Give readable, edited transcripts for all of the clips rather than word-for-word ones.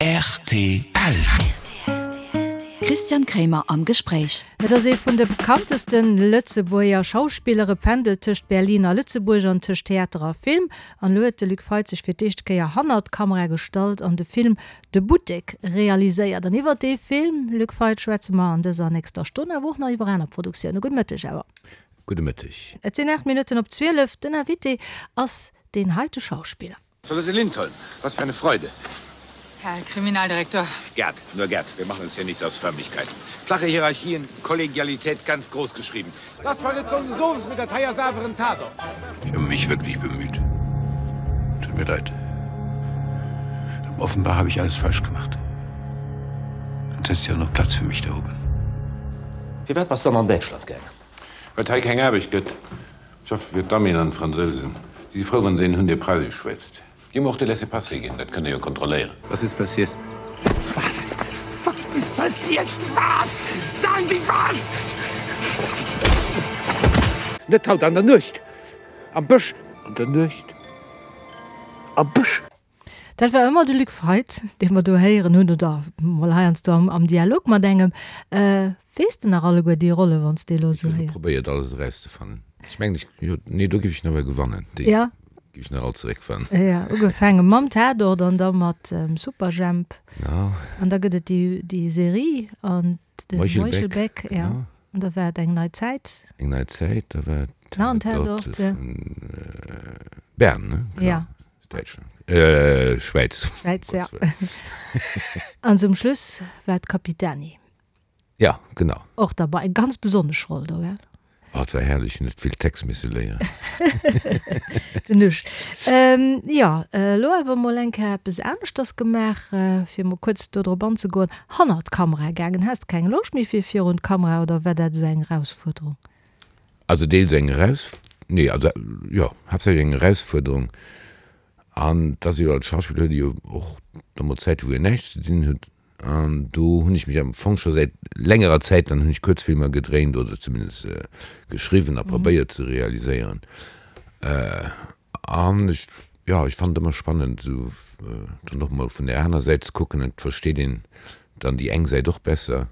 Rtl. Christian Kremer am Gespréich. Et ass ee vun de bekannteste Lëtzebuerger Schauspiller. E pendelt tëscht Berlin a Lëtzebuerg an tëscht Theater a Film. An elo huet de Luc Feit sech fir d'éischte Kéier hannert d'Kamera gestallt an de Film De Buttek realiséiert. An iwwert dee Film, Luc Feit, schwätze mer an dëser nächster Stonn, awer och nach iwwer aner Produktioune. Gudde Mëtteg awer. Gudde Mëtteg. Et sinn 8 Minutten op 12. Den Invité ass deen heite Schauspiller. Charlotte Lindholm, was für eine Freude. Herr Kriminaldirektor. Gerd, nur Gerd, wir machen uns hier nichts aus Förmlichkeiten. Flache Hierarchien, Kollegialität ganz groß geschrieben. Das war net so sowas mit der Teier saveren Tatort. Ich habe mich wirklich bemüht. Tut mir leid. Aber offenbar habe ich alles falsch gemacht. Sonst hättest du ja noch Platz für mich da oben. Firwat bass dann an Däitschland gaangen? Well et hei keng Aarbecht gëtt. Schaffe fir d'Amien an d'Fransousen. Si si frou, wann se een hunn, dee Preisesch schwätzt. Déi hu mer och de Laissez-passer ginn, dat kënnt Der jo kontrolléieren. Was ist passiert? Was? Was ist passiert? Was? Sagen Sie was! Net haut an der Nuecht! Am Bësch! An der Nuecht! Am Bësch! Dat war ëmmer de Luc Feit, dee mer do héieren hunn, oder mol heiansdo am Dialog mat engem. Weess de nach alleguer déi Rolle, wann s de elo esou héiers? Ech hu probéiert, alles erauszefannen. Ech mengen, ech, jo, nee, do géif ech nach ewell gewannen. Déi géif ech nach all zeréckfannen. Jo, ugefaange mam Tatort an da mat Superjhemp. Genau. An da gëtt et déi Serie an de Meuchelbäck, jo. An da war et eng nei Zäit. Eng nei Zäit, da war et Tatort vun Bern, ne? Jo. Däitschland, äh, Schwäiz. Schwäiz, ja. An zum Schluss war d'Capitani. Ja, genau. Och derbei, eng ganz besonnesch Roll do, gell? Oh, et war herrlech, net vill Text misse léieren. Den Usch. Ähm, jo, elo awer mol eng Kéier eppes aneschters gemaach, fir mol kuerz do drop anzegoen, hannert d'Kamera gaangen. Has de keng Loscht méi fir virun d'Kamera oder war dat esou eng Erausfuerderung? Also deels eng Eraus, nee, also jo, haaptsächlech eng Erausfuerderung. An et ass jo, als Schauspiller huet ee jo och da mol Zäite wou een näischt ze dinn huet. An do hunn ech mech am Fong scho säit längerer Zäit, dann hunn ech Kuerzfilmer gedréint oder zumindest geschriwwen a probéiert ze realiséieren. An ech, jo, ech fannen et ëmmer spannend esou dann och mol vun där aner Säit ze kucken. Et versteet een dann déi eng Säit och besser.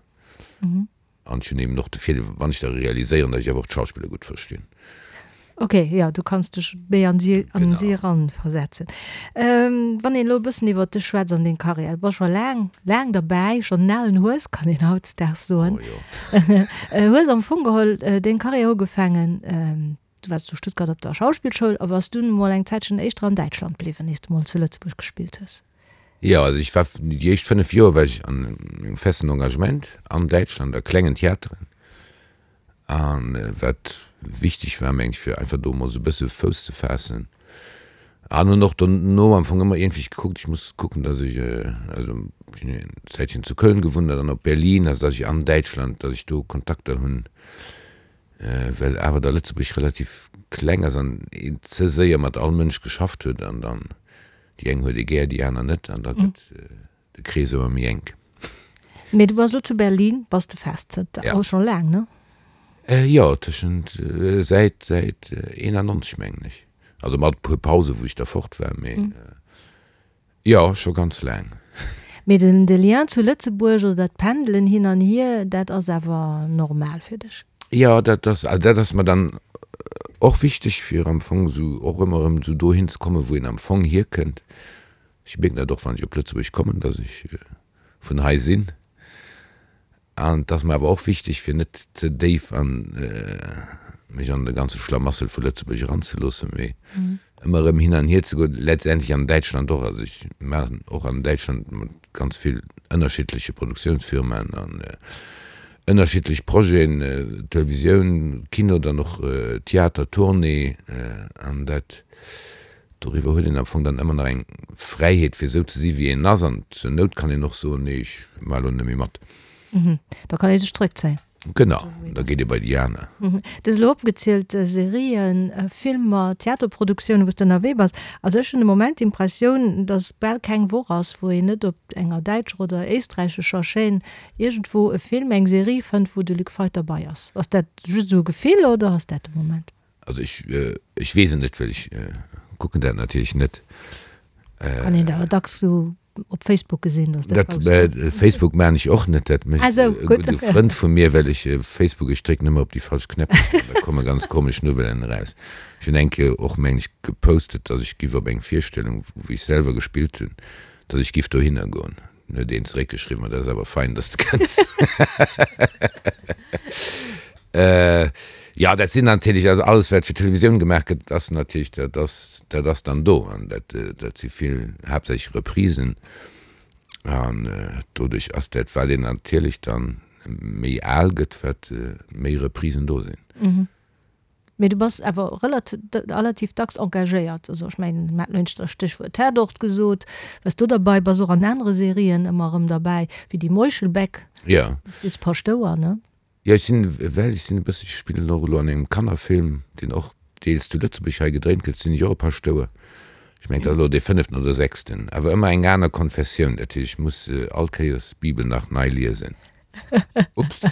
An ech hunn eben och de Virdeel, wann ech da realiséieren, datt ech awer och d'Schauspiller gutt verstinn. Ok, jo, du kanns dech méi an si, an si eran versetzen. Wann een elo e bëssen iwwert dech schwätzt an deng Karriär, du bass scho laang, laang derbäi, schonn en alen Hues, kann een hautdesdaags soen. Oh jo. Hues am Fong geholl deng Karriär ugefaangen, du waars zu Stuttgart op der Schauspillschoul a bass dunn emol eng Zäitchen éischter an Däitschland bliwwen, iers de mol zu Lëtzebuerg gespillt hues. Jo, also ech war déi éischt 5 Joer war ech an engem festen Engagement an Däitschland a klengen Theateren. An wat wichteg war, meng ech, fir einfach do emol esou e bësse Fouss ze faassen. An hunn och dono am Fong ëmmer iergendwéi gekuckt, ech muss kucken, datt ech, also ech hunn eng Zäitchen zu Köln gewunnt an dann op Berlin, also datt ech an Däitschland, datt ech do Kontakter hunn, well awer da Lëtzebuerg relativ kleng ass an een ze séier mat all Mënsch geschafft huet an dann Déi eng huet ee gär, déi aner net, an da gëtt de Krees ëmmer méi enk. Mee du bass elo zu Berlin, bass de fest zënter Ja. och scho laang, ne? Jo, tëschent, säit, säit 91 mengen ech. Also mat e puer Pausen, wou ech da fort war, mee jo, scho ganz laang. Mee den, de Lien zu Lëtzebuerg oder dat Pendelen hin an hier, dat ass awer normal fir dech? Jo, dat ass, also dat ass mer dann och wichteg, fir am Fong esou och ëmmer erëm esou dohin ze kommen, wou een am Fong hierkënnt. Ech mierken dat och, wann ech op Lëtzebuerg kommen, dass ech vun hei sinn. An et ass mer awer och wichteg, fir net ze déif an mech an de ganze Schlamassel vu Lëtzebuerg eranzeloossen, mee ëmmer erëm hin an hier ze goen, letztendlech an Däitschland och. Also ech maachen och an Däitschland mat ganz vill ënnerschiddleche Produktiounsfirmaen an ënnerschiddlech Projeten, Televisioun, Kino, dann och Theater, Tournée an dat doriwwer huet een am Fong dann ëmmer nach eng Fräiheet fir esou ze si wéi een ass an zur Nout kann een och soen, nee ech maache lo net méi mat. Da kann ee sech zréckzéien. Genau, da geet ee bei déi aner. Du hues elo opgezielt, Serien, Filmer, Theaterproduktiounen, wou s de ënnerwee bass. Also ech hunn de Moment d'Impressioun, datt bal keng Woch ass, wou een net op enger däitscher oder éisträichescher Chaîne iergendwou e Film, eng Serie fënnt, wou de Luc Feit derbei ass. Ass dat just esou e Gefill oder ass dat de Moment? Also ech, ech weess et net, well ech kucken dat natierlech net. Kann een dat awer dacks esou. op Facebook gesinn, dass dat dat Facebook maan ech och net, dat mécht e gudde Frënd vu mir, well ech Facebook, ech drécken ëmmer op déi falsch Knäpp an da komme ganz komesch Nouvellen eraus. Ech hunn eng Kéier och meng ech gepostet, dass ech giff op eng Virstellung, wou ech selwer gespillt hunn, dass ech giff dohinner goen. Dann huet een zeréckgeschriwwen, ma dat ass awer fein, dass de kënns. Jo, dat sinn natierlech, also alles wat fir d'Televisioun gemaach gëtt, ass natierlech, dat ass, dat ass dann do an dat, dat si vill haaptsächlech Reprisen an doduerch ass dat, wat een natierlech dann méi al gëtt, wat méi Reprisen do sinn. Mee du bass awer relativ dacks engagéiert. Also ech mengen, mir haten elo eent Stéchwuert Tatort gesot, waars do derbei, bass och an anere Serien ëmmer erëm derbäi, wéi déi Meuchelbäck. Jo. Du spills Paschtouer, ne? Jo, ech sinn, well ech sinn e bëssen, ech spillen och elo an engem Kannerfilm, deen och deels zu Lëtzebuerg hei gedréint gëtt, sinn ech och e Paschtouer. Ech mengen, dat ass elo dee fënneften oder sechsten, awer ëmmer eng aner Konfessioun. Dat heescht, ech muss all Kéiers d'Bibel nach nei liesen. Ups. Dat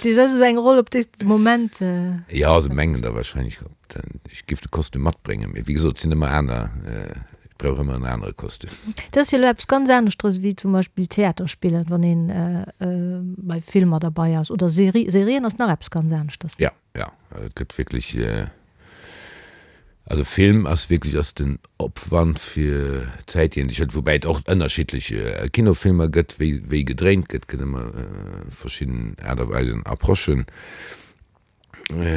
heescht, dat ass esou eng Roll, op déi s de de Moment. Jo, se mengen da wahrscheinlech, ech géif de Kostüm matbréngen. Mee wéi gesot, et sinn ëmmer aner, ech brauch ëmmer en anere Kostüm. Dat ass jo elo eppes ganz aneschteres wéi zum Beispill Theater spillen, wann een bei Filmer derbei ass oder Serie. Serien ass nach eppes ganz aneschters. Jo, jo, et gëtt wierklech. Also Film ass wierklech ass den Opwand fir d'Zäit déi een sech huet, woubäi et och ënnerschiddlech Kinofilmer gëtt, wéi wéi gedréint gëtt, gëtt ëmmer verschidden Aart a Weisen, Approchen.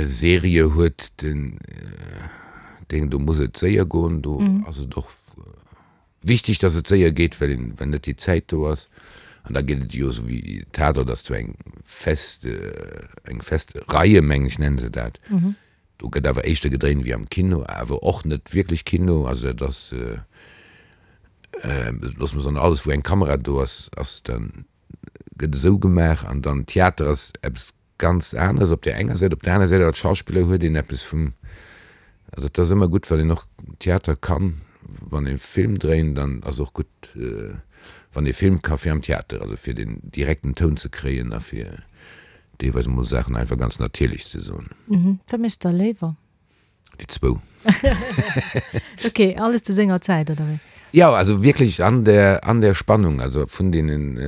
Serie huet den Ding, do muss et séier goen, do ass et och wichteg, datt et séier geet, well een well net déi Zäit do ass. An da geet et jo esou wéi Tatort ass zwar eng fest eng fest Reie mengen ech nennen se dat. Do gëtt awer éischter gedréint wéi am Kino, awer och net wierklech Kino. Also dat ass, loosse mer soen, alles wou eng Kamera do ass, ass dann, gëtt esou gemaach. An dann Theater ass eppes ganz aneres op där enger Säit. Op där aner Säit als Schauspiller huet een eppes vum, also et ass ëmmer gutt, wann een och Theater kann, wann ee Film dréint, dann ass och gutt, wann ee Film ka fir am Theater, also fir den direkten Toun ze kréien a fir Deelweis emol Saachen einfach ganz natierlech ze soen. Wat méchs de da léiwer? Déi zwou. Ok, alles zu senger Zäit, oder wéi? Jo, also wierklech an der, an der Spannung, also vun deenen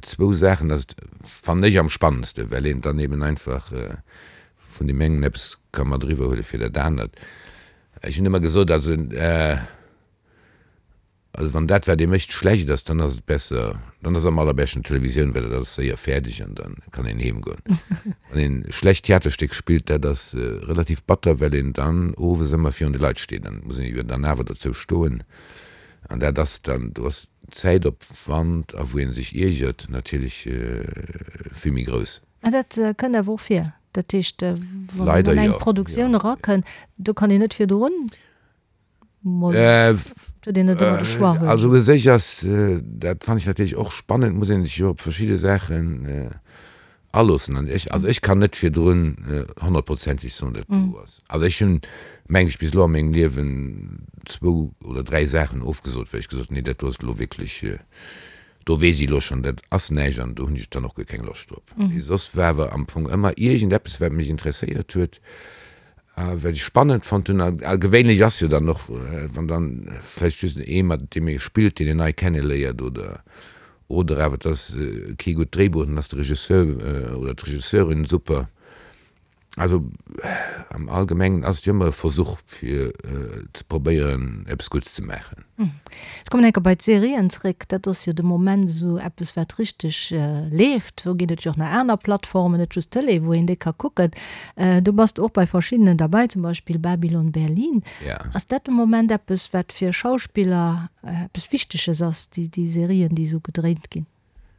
zwou Saachen ass et, fannen ech, am spannendste, well een dann eben einfach vun deem engen eppes ka mat eriwwer huele fir dat anert. Ech hunn ëmmer gesot, also, Also wann dat wat ee mécht schlecht ass, dann ass et besser, dann ass am allerbeschten Televisioun, well dat ass séier fäerdeg an da kann een heem goen. Wann een e schlecht Theaterstéck spillt, dat ass relativ batter, well een dann owes ëmmer virun de Leit steet an et muss een jo dann awer dozou stoen an dat ass dann, do ass Zäitopwand a wou ee sech iergert natierlech vill méi grouss. Mä dat kënnt awer och vir, dat heescht wann een an eng Produktioun erakënnt, do kann een net virdrun Also u sech ass, dat fannen ech natierlech och spannend, muss een sech jo op verschidde Saachen aloossen. An ech, also ech kann net virdrun honnertprozenteg soen, dat do ass. Also ech hunn, meng ech, bis elo a mengem Liewen zwou oder dräi Saachen ofgesot, well ech gesot hunn, nee dat do ass elo wierklech, do weess ech elo schonn, dat ass näischt an do hunn ech dann och guer keng Loscht drop. Mee soss war awer am Fong ëmmer iergendeppes, wat mech interesséiert huet, A wat ech spannend fonnt hunn, a gewéinlech ass jo dann och, wann dann vläicht just ee mat deem ee spillt, deen een nei kenneléiert oder oder awer et ass kee gutt Dréibuch, dann ass de Regisseur oder d'Regisseurin super. Also am Allgemengen ass et jo ëmmer e Versuch fir ze probéieren eppes Gutts ze maachen. Ech kommen eng Kéier bei d'Serien zréck. Dat ass jo de Moment esou eppes, wat richteg leeft. Do ginn et jo och nach aner Plattformen, net just d'Tëlee, wou een déi ka kucken. Do bass de och bei verschiddenen derbäi, zum Beispill Babylon Berlin. Ass dat de Moment eppes, wat fir Schauspiller eppes Wichteges ass, déi Serien, déi esou gedréint ginn?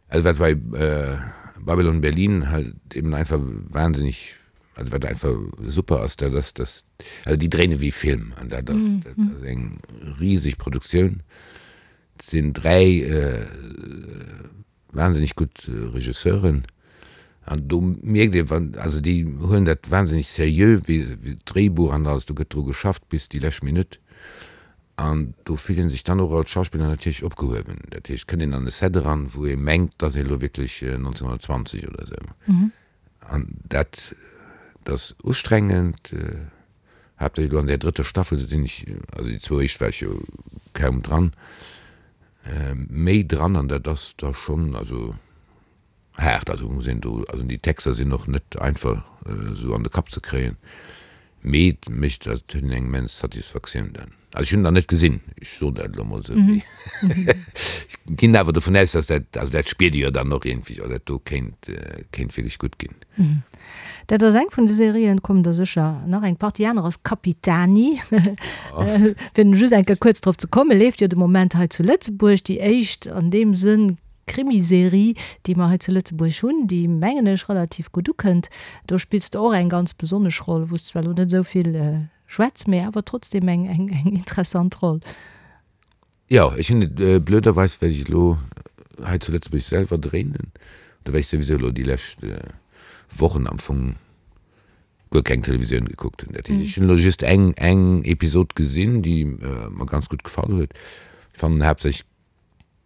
Also wat bei Babylon Berlin halt eben einfach wahnsinnig, also wat einfach super ass, dat ass, dass, also déi dréine wéi Film an dat ass, dat ass eng riseg Produktioun. Et sinn 3 wahnsinnig gutt Regisseuren an do mierkt ee wann, also déi huelen dat wahnsinnig seriö, wéi d'Dréibuch an alles, do gëtt dru geschafft bis déi lescht Minutt. An do fillt ee sech dann och als Schauspiller natierlech opgehuewen. Dat heescht, et kënnt een an e Set eran, wou ee mengt, et ass ee elo wierklech 1920 oder esou. An dat ass ustrengend, haaptsächlech elo an där drëtter Staffel sinn ech, also déi zwou éischt war ech jo kaum dran. méi dran an dat ass da schonn also haart. Also muss een do, also déi Texter sinn och net einfach esou an de Kapp ze kréien, mee et mécht, also et huet een eng immens Satisfaktioun dann. Also ech hunn en nach net gesinn, ech soen dat elo mol esou, mee ech ginn awer dovun aus, dass dat, also dat spiert ee jo dann och iergendwéi, oh dat do kéint, kéint wierklech gutt ginn. Dat ass eng vun de Serien, et kommen der sécher nach eng Partie aner, ass Capitani. Fir just eng Kéier kuerz drop ze kommen, leeft jo de Moment hei zu Lëtzebuerg, déi éischt an deem Sënn Krimiserie, déi mer hei zu Lëtzebuerg hunn, déi, mengen ech, relativ gutt ukënnt. Do spills de och eng ganz besonnesch Roll, wou s de zwar elo net esou vill schwätz, mee awer trotzdem eng interessant Roll. Jo, ech hunn et blöderweis, well ech elo hei zu Lëtzebuerg selwer dréinen, do well ech souwisou elo déi lescht Wochen am Fong guer keng Televisioun gekuckt hunn. Dat heescht, ech hunn elo just eng eng Episod gesinn, déi mer ganz gutt gefall huet. Ech fannen haaptsächlech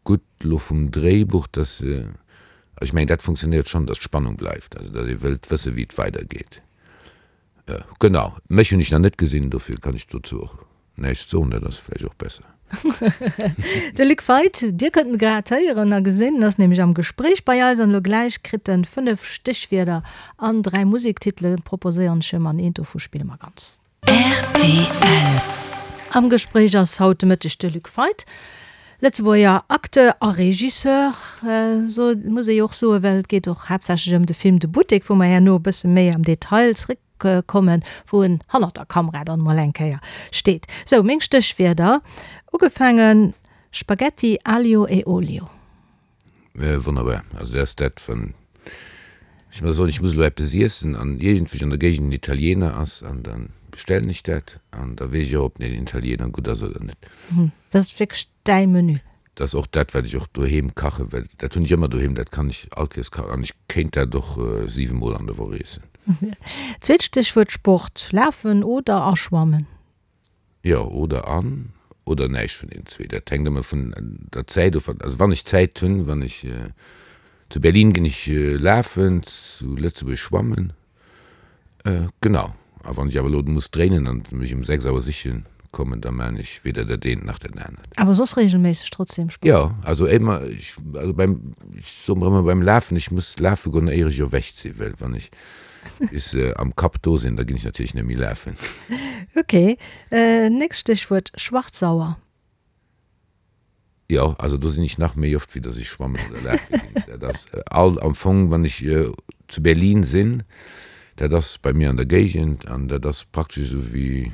gutt elo vum Dréibuch, dass se, also ech mengen dat funktionéiert schonn, dass d'Spannung bleift, also dass ee wëllt wësse wéi et weidergeet. Genau, mech hunn ech nach net gesinn, dofir kann ech dozou och näischt soen, dat ass vläicht och besser. De Luc Feit, Dir kënnt en grad héieren a gesinn, en ass nämlech am Gespréich bei eis an elo gläich kritt en 5 Stéchwierder an 3 Musektitele proposéieren ech em an eent dovu spille mer ganz. Rtl. Am Gespréich ass haut de Mëtteg de Luc Feit, Lëtzebuerger Acteur a Regisseur, so muss ee jo och soen, well et geet och haaptsächlech ëm de Film De Buttek, wou mer herno e bësse méi am Detail zréckkommen, wou en hannert der Kamera dann emol eng Kéier steet. Sou, meng Stéchwierder, ugefaangen, Spaghetti aglio e olio. Wonnerbar. Also dat ass dat, wann ech mer soen, ech muss elo eppes iessen an iergendwéi an der Géigend en Italiener ass, an da bestellen ech dat an da weess ech och, ob den Italiener gutt ass oder net. Dat ass wierklech däi Menü? Dat ass och dat, wat ech och doheem kachen, well dat hunn ech ëmmer doheem, dat kann ech all Kéiers kachen an ech kéint dat och 7 Mol an der Woch iessen. Zweet Stéchwuert, Sport, Lafen oder a Schwammen? Jo, oder an, oder näischt vun deenen zwee. Dat hänkt ëmmer vun der Zäit of. Also wann ech Zäit hunn, wann ech zu Berlin ginn ech lafen, zu Lëtzebuerg schwammen, genau. A wann ech awer elo muss dréinen an mech um 6 Auer siche kommen, da maan ech weder dat eent nach dat anert. Awer soss regelméisseg trotzdem Sport? Jo, also émmer, ech, also beim, ech soe mer ëmmer beim Lafen, ech muss lafe goen éier ech erwächt sinn, well wann ech bis se am Kapp do sinn, da ginn ech natierlech net méi lafen. Ok, nächst Stéchwuert, Schwarzsauer. Jo, also do sinn ech nach méi oft, wéi datt ech schwammen oder lafe ginn. Dat ass all am Fong, wann ech zu Berlin sinn, dat ass bei mir an der Géigend an dat ass praktesch esou wéi,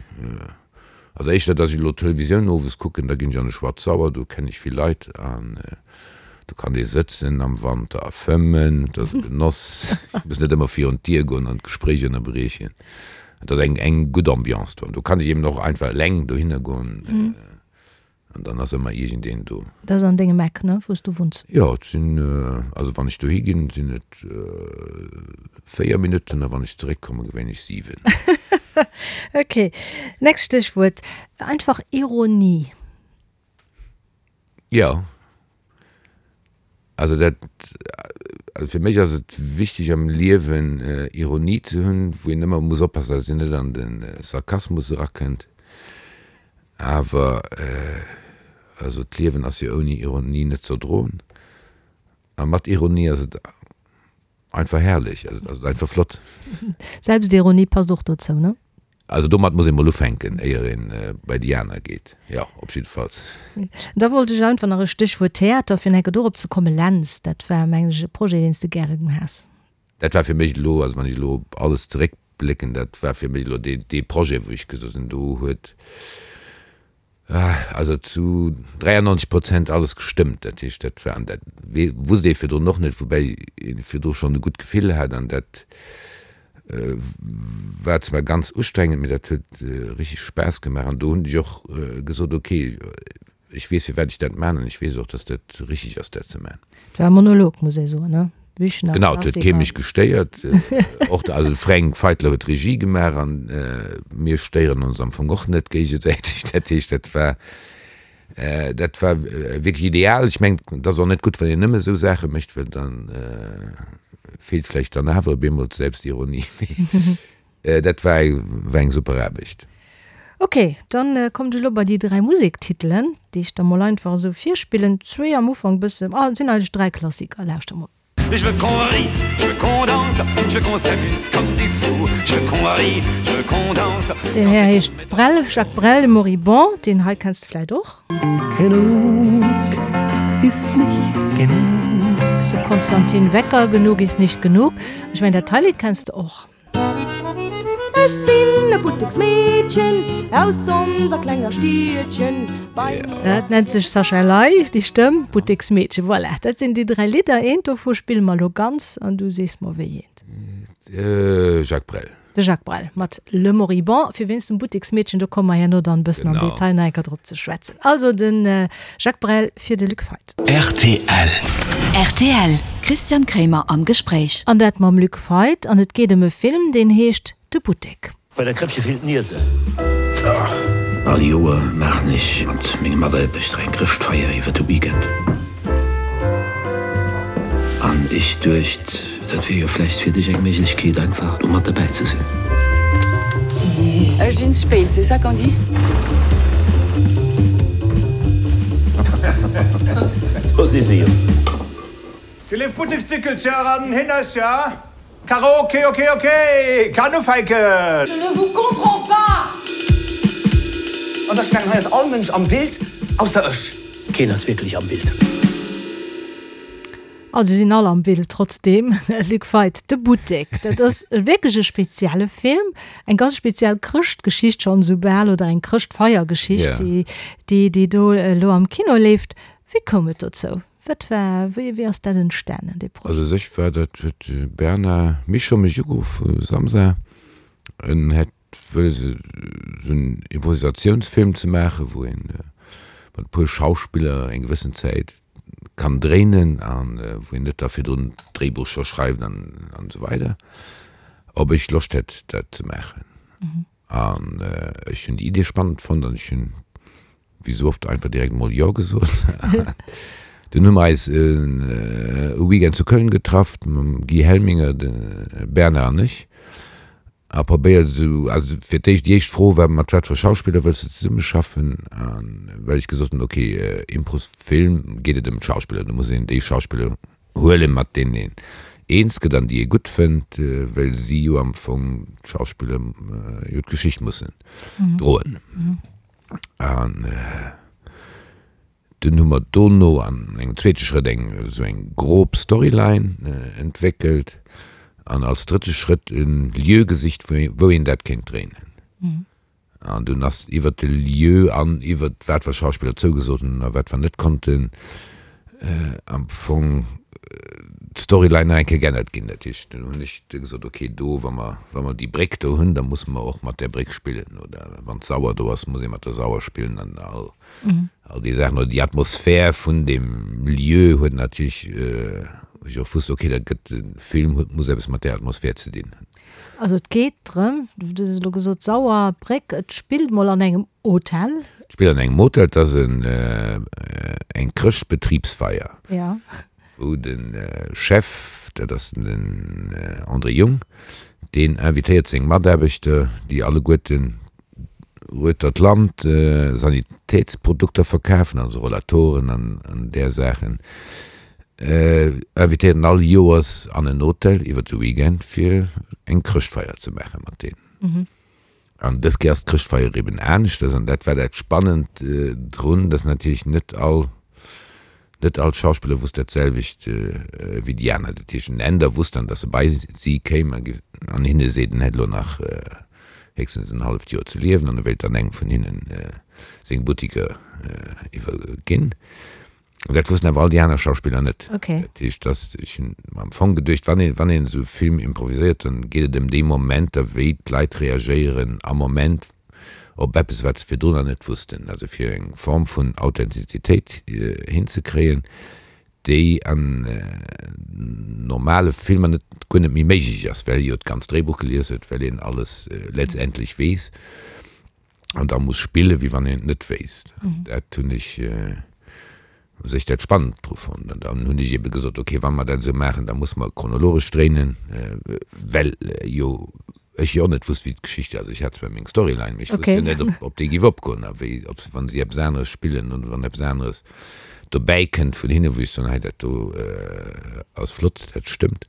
Also éischter dass ech elo d'Televisioun owes kucken, da ginn ech an de Schwarzsauer, do kennen ech vill Leit an do kann ee sëtzen am Wanter a fëmmen, dat ass e Genoss. Ech muss net ëmmer virun d'Dier goen an d'Gespréich ënnerbriechen. Et ass eng eng gutt Ambiance do an do kann ech eben och einfach eleng dohinner goen. An dann ass ëmmer iergendeen do. Dat ass an dengem Eck, ne, wou s du wunns? Jo, et sinn, also wann ech dohi ginn, sinn et 4 Minutten a wann ech zeréckkommen, gewéinlech 7. Ok. Nächst Stéchwuert, einfach Ironie. Jo. Also dat, also fir mech ass et wichteg am Liewen Ironie ze hunn, wou een ëmmer muss oppassen, datt een net an de Sarkasmus erakënnt. Awer also d'Liewen ass jo ouni Ironie net z'erdroen a mat Ironie ass et einfach herrlech, also et ass einfach flott. Selbstironie passt och dozou, ne? Also domat muss ee mol ufänken, éier een bei déi aner geet. Jo, op jiddefalls. Da wollt ech einfach nach e Stéchwuert Theater, fir enke dorop ze kommen. Lentz, dat war, mengen ech, e Projet, deen s de gäre has. Dat war fir mech elo, also wann ech elo op alles zeréckblécken, dat war fir mech elo dee, dee Projet, wou ech gesot hunn, do huet also zu 93 Prozent alles gestëmmt. Dat heescht, dat war, an dat wusst ee virdrun och net, woubäi ee virdru schonn e gutt Gefill hat an dat war zwar ganz ustrengend, mee dat huet richteg Spaass gemaach an do hunn ech och gesot, ok, ech weess firwat ech dat man an ech weess och, dass dat richteg ass dat ze man. Et war e Monolog, muss ee soen, ne? Büchner, Genau, et huet kee mech gestéiert. Och de, also de Fränk Feitler huet d'Regie gemaach an mir stéieren ons am Fong och net géigesäiteg. Dat heescht, dat war, dat war wierklech ideal. Ech mengen, et ass och net gutt, wann een nëmme esou Saache mécht, well da feelt vläicht dann awer op eemol d'Selbstironie. Dat war eng super Aarbecht. Ok, dann kommt ech elo bei déi 3 Musektitelen, déi ech der mol einfach esou virspillen. Zwee am Ufank bësse, ah et sinn eigentlech 3 Klassiker, lauschter mol. Je veux qu'on rie, je veux qu'on danse, je veux qu'on s'amuse comme des fous, je veux qu'on rie, je veux qu'on danse. Deen Här heescht Brel, Jacques Brel, de Moribond, deen hei kenns de vläit och. Genug ist nicht genug. Zu Konstantin Wecker, Genug ist nicht genug. Ech mengen dat hei Lidd kenns de och. Ech sinn e Butteksmeedchen aus onser klenger Stiedchen. Bei mir. Dat nennt sech Sascha Ley, déi Stëmm, Butteksmeedchen. Voilà, dat sinn déi 3 Lidder. Eent dovu spille mer elo ganz an du sees mer wéi eent. Jacques Brel. De Jacques Brel mat Le Moribond. Fir wéinst dem Butteksmeedchen, do komme mer herno dann e bëssen am Detail nach eng Kéier drop ze schwätzen. Also de Jacques Brel fir de Luc Feit. Rtl. Rtl, Christian Kremer am Gespréich. An dat mam Luc Feit. An et geet ëm e Film, deen heescht De Buttek. Bei der Krëppche feelt d'Niese. All Joer maachen ech mat menge Mataarbechter eng Chrëschtfeier iwwer de Weekend. An ech duecht, dat wier jo vläicht fir dech eng Méiglechkeet, einfach do mat derbäi ze sinn. Ech sinn spéit, c'est ça qu'on dit? Do si se jo. Déi léif Butteksdickelcher an Hinnercher, Karaoke, ok, ok, kann ufänken! Je ne vous comprends pas! An ech mengen, hei ass all Mënsch am Bild, ausser ech. Keen ass wierklech am Bild. Also si sinn all am Bild trotzdeem. Luc Feit, De Buttek, dat ass wierklech e spezielle Film, eng ganz speziell Chrëschtgeschicht schonn esou bal oder eng Chrëschtfeiergeschicht, déi déi do elo am Kino leeft. Wéi koum et dozou? Wat war, wéi wéi ass dat entstanen, dee Projet? Also u sech war dat, huet de Bernard Michon mech ugeruff vu Samsa, en hätt wëlles esou en Improvisatiounsfilm ze maachen, wou een mat e puer Schauspiller eng gewëssen Zäit kann dréinen an wou een net da virdrun d'Dréibuch scho schreift an an esou weider, ob ech Loscht hätt dat ze maachen. An ech hunn déi Idee spannend fonnt an ech hunn wéi sou oft einfach direkt mol Jo gesot. Dunn hu mer eis e Weekend zu Köln getraff mam Guy Helminger, de Bernard an ech a probéiert esou, also fir d'éischt, déi éischt Fro war, mat wat fir Schauspiller wëlls de zesummeschaffen? A well ech gesot hunn, ok, Improsfilm geet et ëm d'Schauspiller, do muss een déi Schauspiller huelen, mat deenen een eens gëtt an déi ee gutt fënnt, well si jo am Fong, d'Schauspiller, jo d'Geschicht mussen droen. An dunn hu mer dono an engem zweete Schrëtt eng esou eng grob Storyline entwéckelt an als drëtte Schrëtt e Lieu gesicht, wou een dat kéint dréinen. An dunn ass iwwert de Lieu an iwwert wat wir Schauspiller zougesot hunn a wat wir net konnten, am Fong d'Storyline nach eng Kéier geännert ginn. Dat heescht, dunn hunn ech du gesot, okay, do, wa mer, wa mer déi Bréck do hunn, da musse mer och mat där Bréck spillen. Oder wann d'Sauer do ass, muss ee mat der Sauer spillen an all, all déi Saachen. Oder déi Atmosphär vun deem Lieu huet natierlech, wou ech och wusst, okay, dat gëtt, de Film huet, muss eppes mat där Atmosphär ze dinn hunn. Also et geet drëm, du hues elo gesot Sauer, Bréck, et spillt mol an engem Hotel. Et spillt an engem Hotel, et ass eng Chrëschtbetribsfeier, wou de Chef, dat ass den André Jung, deen invitéiert seng Mataarbechter, déi alleguerten ueter d'Land Sanitätsprodukter verkafen, also Rollatoren an där Saachen, invitéiert en all Joers an en Hotel iwwer de Weekend fir eng Chrëschtfeier ze maache mat deenen. An dës Kéier ass d'Chrëschtfeier eben aneschters an dat war dat Spannend drun, dass natierlech net all Net all Schauspiller wusst dat selwecht wéi déi aner. Dat heescht, den Änder wusst dann, datt e bei si kéim an hinne seet, en hätt elo nach héchstens en halleft Joer ze liewen an e wéilt dann engem vun hinnen seng Buttiker iwwerginn. Dat wussten awer all déi aner Schauspiller net. Dat heescht, datt, ech hunn mer am Fong geduecht, wann een, wann een esou e Film improviséiert, dann geet et ëm déi Momenter, wéi d'Leit reagéieren am Moment, op eppes, wat se virdrun nach net wussten, also fir eng Form vun Authentizitéit hinzekréien, déi an normale Filmer net, guer net méi méiglech ass, well ee jo d'ganzt Dréibuch gelies huet, well een alles letztendlech weess an da muss spillen, wéi wann een et net wéisst. Dat hunn ech u sech dat spannend dru fonnt. An dann hunn ech ebe gesot, okay, wa mer dat esou maachen, da musse mer chronologesch dréinen, well jo. Ech jo och net wusst, wéi d'Geschicht, also ech hat zwar meng Storyline, mee ech wusst jo net, ob, ob déi géif opgoen a wéi, ob se, wann si eppes aneres spillen oder wann eppes aneres dobäi kënnt vun hinne, wou ech soen, hei dat do ass flott, dat stëmmt,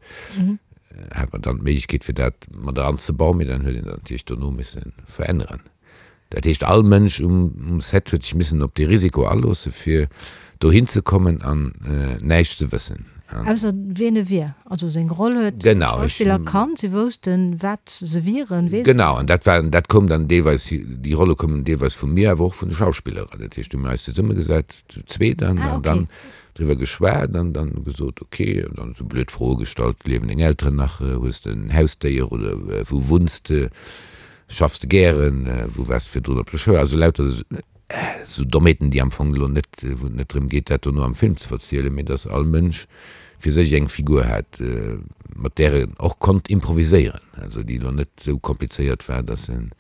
hat mer dann d'Méiglechkeet fir dat mat eranzebauen, mee dann huet een dat natierlech dono misse veränneren. Dat heescht, all Mënsch um Set huet sech missen op dee Risiko aloosse fir dohin ze kommen an näischt ze wëssen. Ausser wien e wier. Also seng Roll huet d'Schauspiller kannt, si woussten, wat se wieren, wee se Genau, an dat war, dat koum dann deelweis, déi Rolle koumen deelweis vu mir, awer och vun de Schauspiller. Dat heescht, hu mir eis zesummegesat, zu zweet, an dann driwwer geschwat an dann gesot, ok, an dann esou blöd Froe gestallt, Liewen deng Elteren nach, hues de en Hausdéier oder wou wunns de? Schaffs de gären? Wou waars de virdrun op der Schoul? Also lauter esou Dommheeten, déi am Fong elo net, wou et net drëm geet, dat dono am Film ze verzielen, mee dass all Mënsch fir sech eng Figur hat, mat där en och konnt improviséieren, also déi elo net esou komplizéiert war, dass en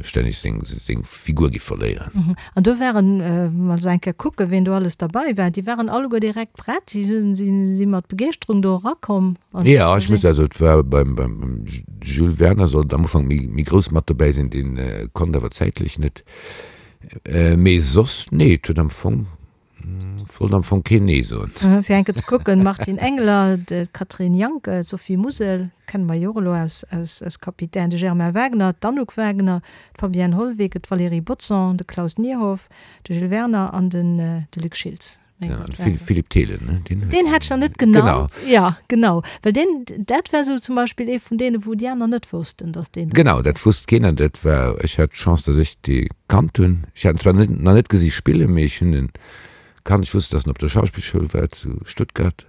stänneg seng Figur giff verléieren. An do waren, wa se eng Kéier kucken, wien do alles derbei war, déi waren alleguer direkt prett, si si mat Begeeschterung do erakomm. Jo, ech muss, also et war beim beim Jules Werner sollt am Ufank méi méi grouss mat dobäi sinn, deen konnt awer zäitlech net. Mee soss, nee, et huet am Fong, et wollt am Fong keen nee soen. Fir eng Kéier ze kucken, Martine Engler, d'Catherine Janke, d'Sophie Musel, kenne mer jo och elo aus aus aus Capitaine, de Germain Wagner, d'Anouk Wagner, d'Fabienne Hollweg, d'Valérie Bodson, de Klaus Nierhoff, de Jules Werner an den de Luc Schiltz. Ja, an Philippe Thelen, ne? Deen huet. Deen hätt ech nach net genannt. Genau. Ja, genau. Well deen, dat war esou zum Beispill ee vun deenen, wou déi aner net wossten, dass deen. Genau, dat wusst keen an dat war, ech hat d'Chance, dass ech dee kannt hunn. Ech hat en zwar net, nach net gesi spillen, mee ech hunn en kannt. Ech wusst, dass en op der Schauspillschoul war zu Stuttgart.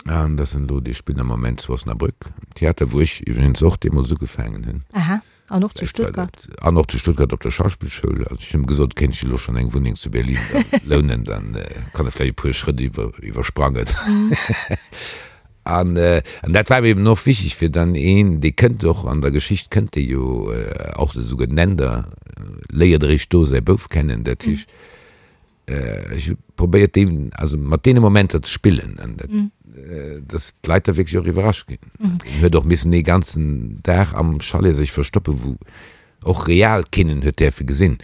An dass en elo, dee spillt am Moment zu Osnabrück am Theater, wou ech iwwregens och deemools ugefaangen hunn. Aha, an och zu Stuttgart. An och zu Stuttgart op der Schauspillschoul. Also ech hunn him gesot, kéint ech elo schonn eng Wunneng zu Berlin da lounen, dann kann e vläicht e puer Schrëtt iwwer, iwwersprangen. An, an dat war mir eben och wichtig, fir dann een, dee kënnt och an der Geschicht kënnt dee jo och, esouguer den Änder léiert eréischt do säi Bouf kennen, dat heescht, Ech hu probéiert deem, also mat deene Momenter ze spillen an dat, dass d'Leit da wierklech och iwwerrascht ginn. En huet och missen ee ganzen Dag am Chalet sech verstoppen, wou och real keen en huet däerfe gesinn.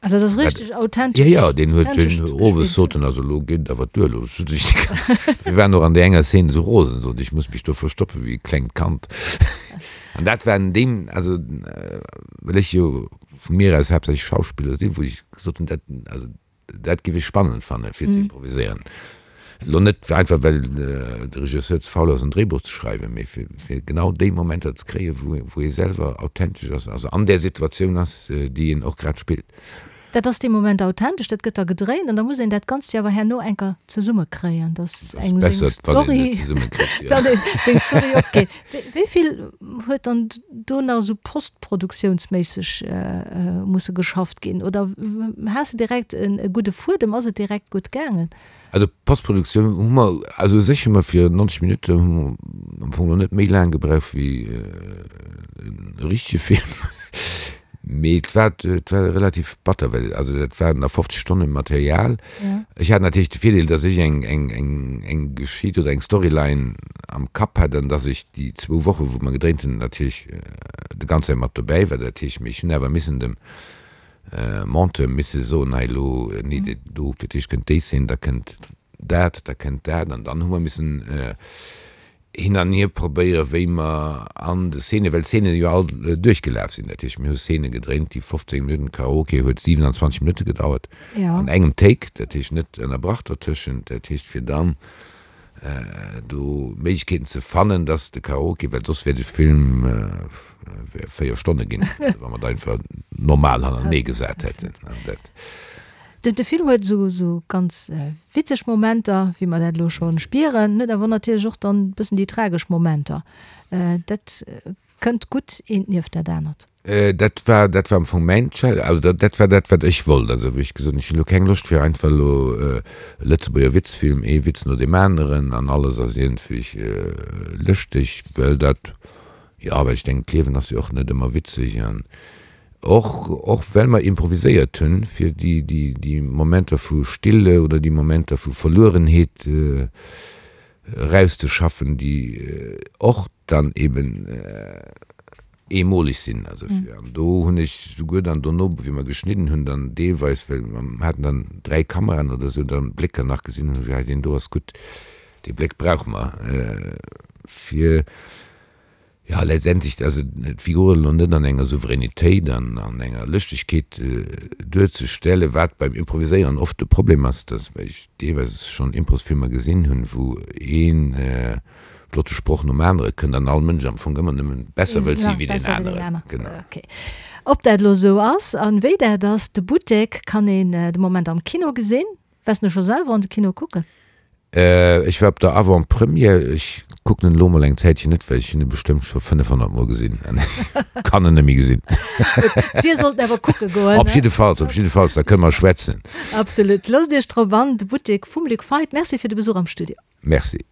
Also dat ass richteg authentesch. Jo, jo, deen huet den owes sot en, also elo geet et awer duer, elo sot ech déi ganz, mir waren och an där enger Szene esou rosen, sot ech muss mech do verstoppen wéi e klengt Kand. An dat war an deem, also well ech jo vu mir aus haaptsächlech Schauspiller sinn, wou ech gesot hunn, dat, also dat géif ech spannend fanne fir ze improviséieren. Elo net einfach well de Regisseur ze faul ass en Dréibuch ze schreiwen, mee fir, fir genau déi Momenter ze kréien, wou, wou ee selwer authentesch ass, also an där Situatioun ass, déi een och grad spillt. Dat ass dee Moment authentesch, dat gëtt da gedréint an da muss een dat Ganzt jo awer herno enker zesummekréien, dass engem seng Story, datt ee seng Story opgeet. Wéi vill huet dann do nach esou postproduktiounsméisseg musse geschafft ginn? Oder has de direkt e gudde Fuedem, ass et direkt gutt gaangen? Also Postproduktioun hu mer, also u sech hu mer fir 90 Minutte hu mer am Fong elo net méi laang gebraucht wéi e richtege Film. Mee et war, et war relativ batter, well also dat waren nach 50 Stonne Material. Ech hat natierlech de Virdeel, datt ech eng, eng, eng, eng Geschicht oder eng Storyline am Kapp hat an datt ech déi zwou Woche wou mer gedréint hunn natierlech de ganz Zäit mat dobäi war. Dat heescht, mee ech hunn awer missen dem Monteur misse soen, hei elo, nee, do fir d'éischt kënnt déi Szene, da kënnt dat, da kënnt dat an dann hu mer missen hin an hier probéieren, wéi mer an de Szenen, well d'Szenen jo all duerchgelaf sinn, dat heescht, mir hu Szene gedréint, déi 15 Minutten, Karaoke huet 27 Minutte gedauert, an engem Take, dat heescht net ënnerbrach dertëschent, dat heescht fir dann do Méiglechkeeten ze fannen, dass de Karaoke, well soss wär de Film wär 4 Stonne ginn, wa mer et einfach normal hannertenee gesat hätten. An dat. De Film huet esou esou ganz witzeg Momenter, wéi mer dat elo scho spieren, huet awer natierlech och dann e bëssen déi tragesch Momenter. Dat kënnt gutt eent nieft dat anert. Dat war, dat war am Fong mäin Challenge, also dat, dat war dat, wat ech wollt. Also wou ech gesot hunn, ech hunn elo keng Loscht fir einfach elo e Lëtzebuerger Witzfilm, ee Witz no deem aneren an alles ass iergendwéi lëschteg, well dat, jo, well ech denken, d'Liewen ass jo och net ëmmer witzeg an Och, och well mer improviséiert hunn, fir déi, déi, déi Momenter vu Stille oder déi Momenter vu Verluerenheet. erauszeschaffen, déi och dann eben eemoleg sinn. Also fir, an do hunn ech souguer dann dono, wéi mer geschnidden hunn, dann deelweis, well mer haten dann 3 Kameraen oder esou, dann Blécker nach gesinn hunn, wéi hei deen do ass gutt, dee Bléck brauche mer fir, Jo, letztendlech, also d'Figuren elo net an enger Souveränitéit an an enger Lëschtegkeet duerzestellen, wat beim Improviséieren oft de Problem ass, dass, well ech deelweis schonn Improsfilmer gesinn hunn, wou ee flotte Sproch nom anere kënnt an all Mënsch am Fong ëmmer nëmmen besser wëllt si wéi deen aneren. Genau. Ok. Ob dat elo esou ass an wéi dat ass, de Buttek kann een de Moment am Kino gesinn. Waars de scho selwer an de Kino kucken? Ech war op der Avant-Première. Ech kucken en elo mol eng Zäitchen net, well ech hunn e bestëmmt scho 500 mol gesinn an ech kann en net méi gesinn. Gutt, dir sollt en awer kucke goen. Op jiddefalls, op jiddefalls, da kënne mer schwätzen. Absolut. Loosst Iech drop an, de Buttek vum Luc Feit. Merci fir de Besuch am Studio. Merci.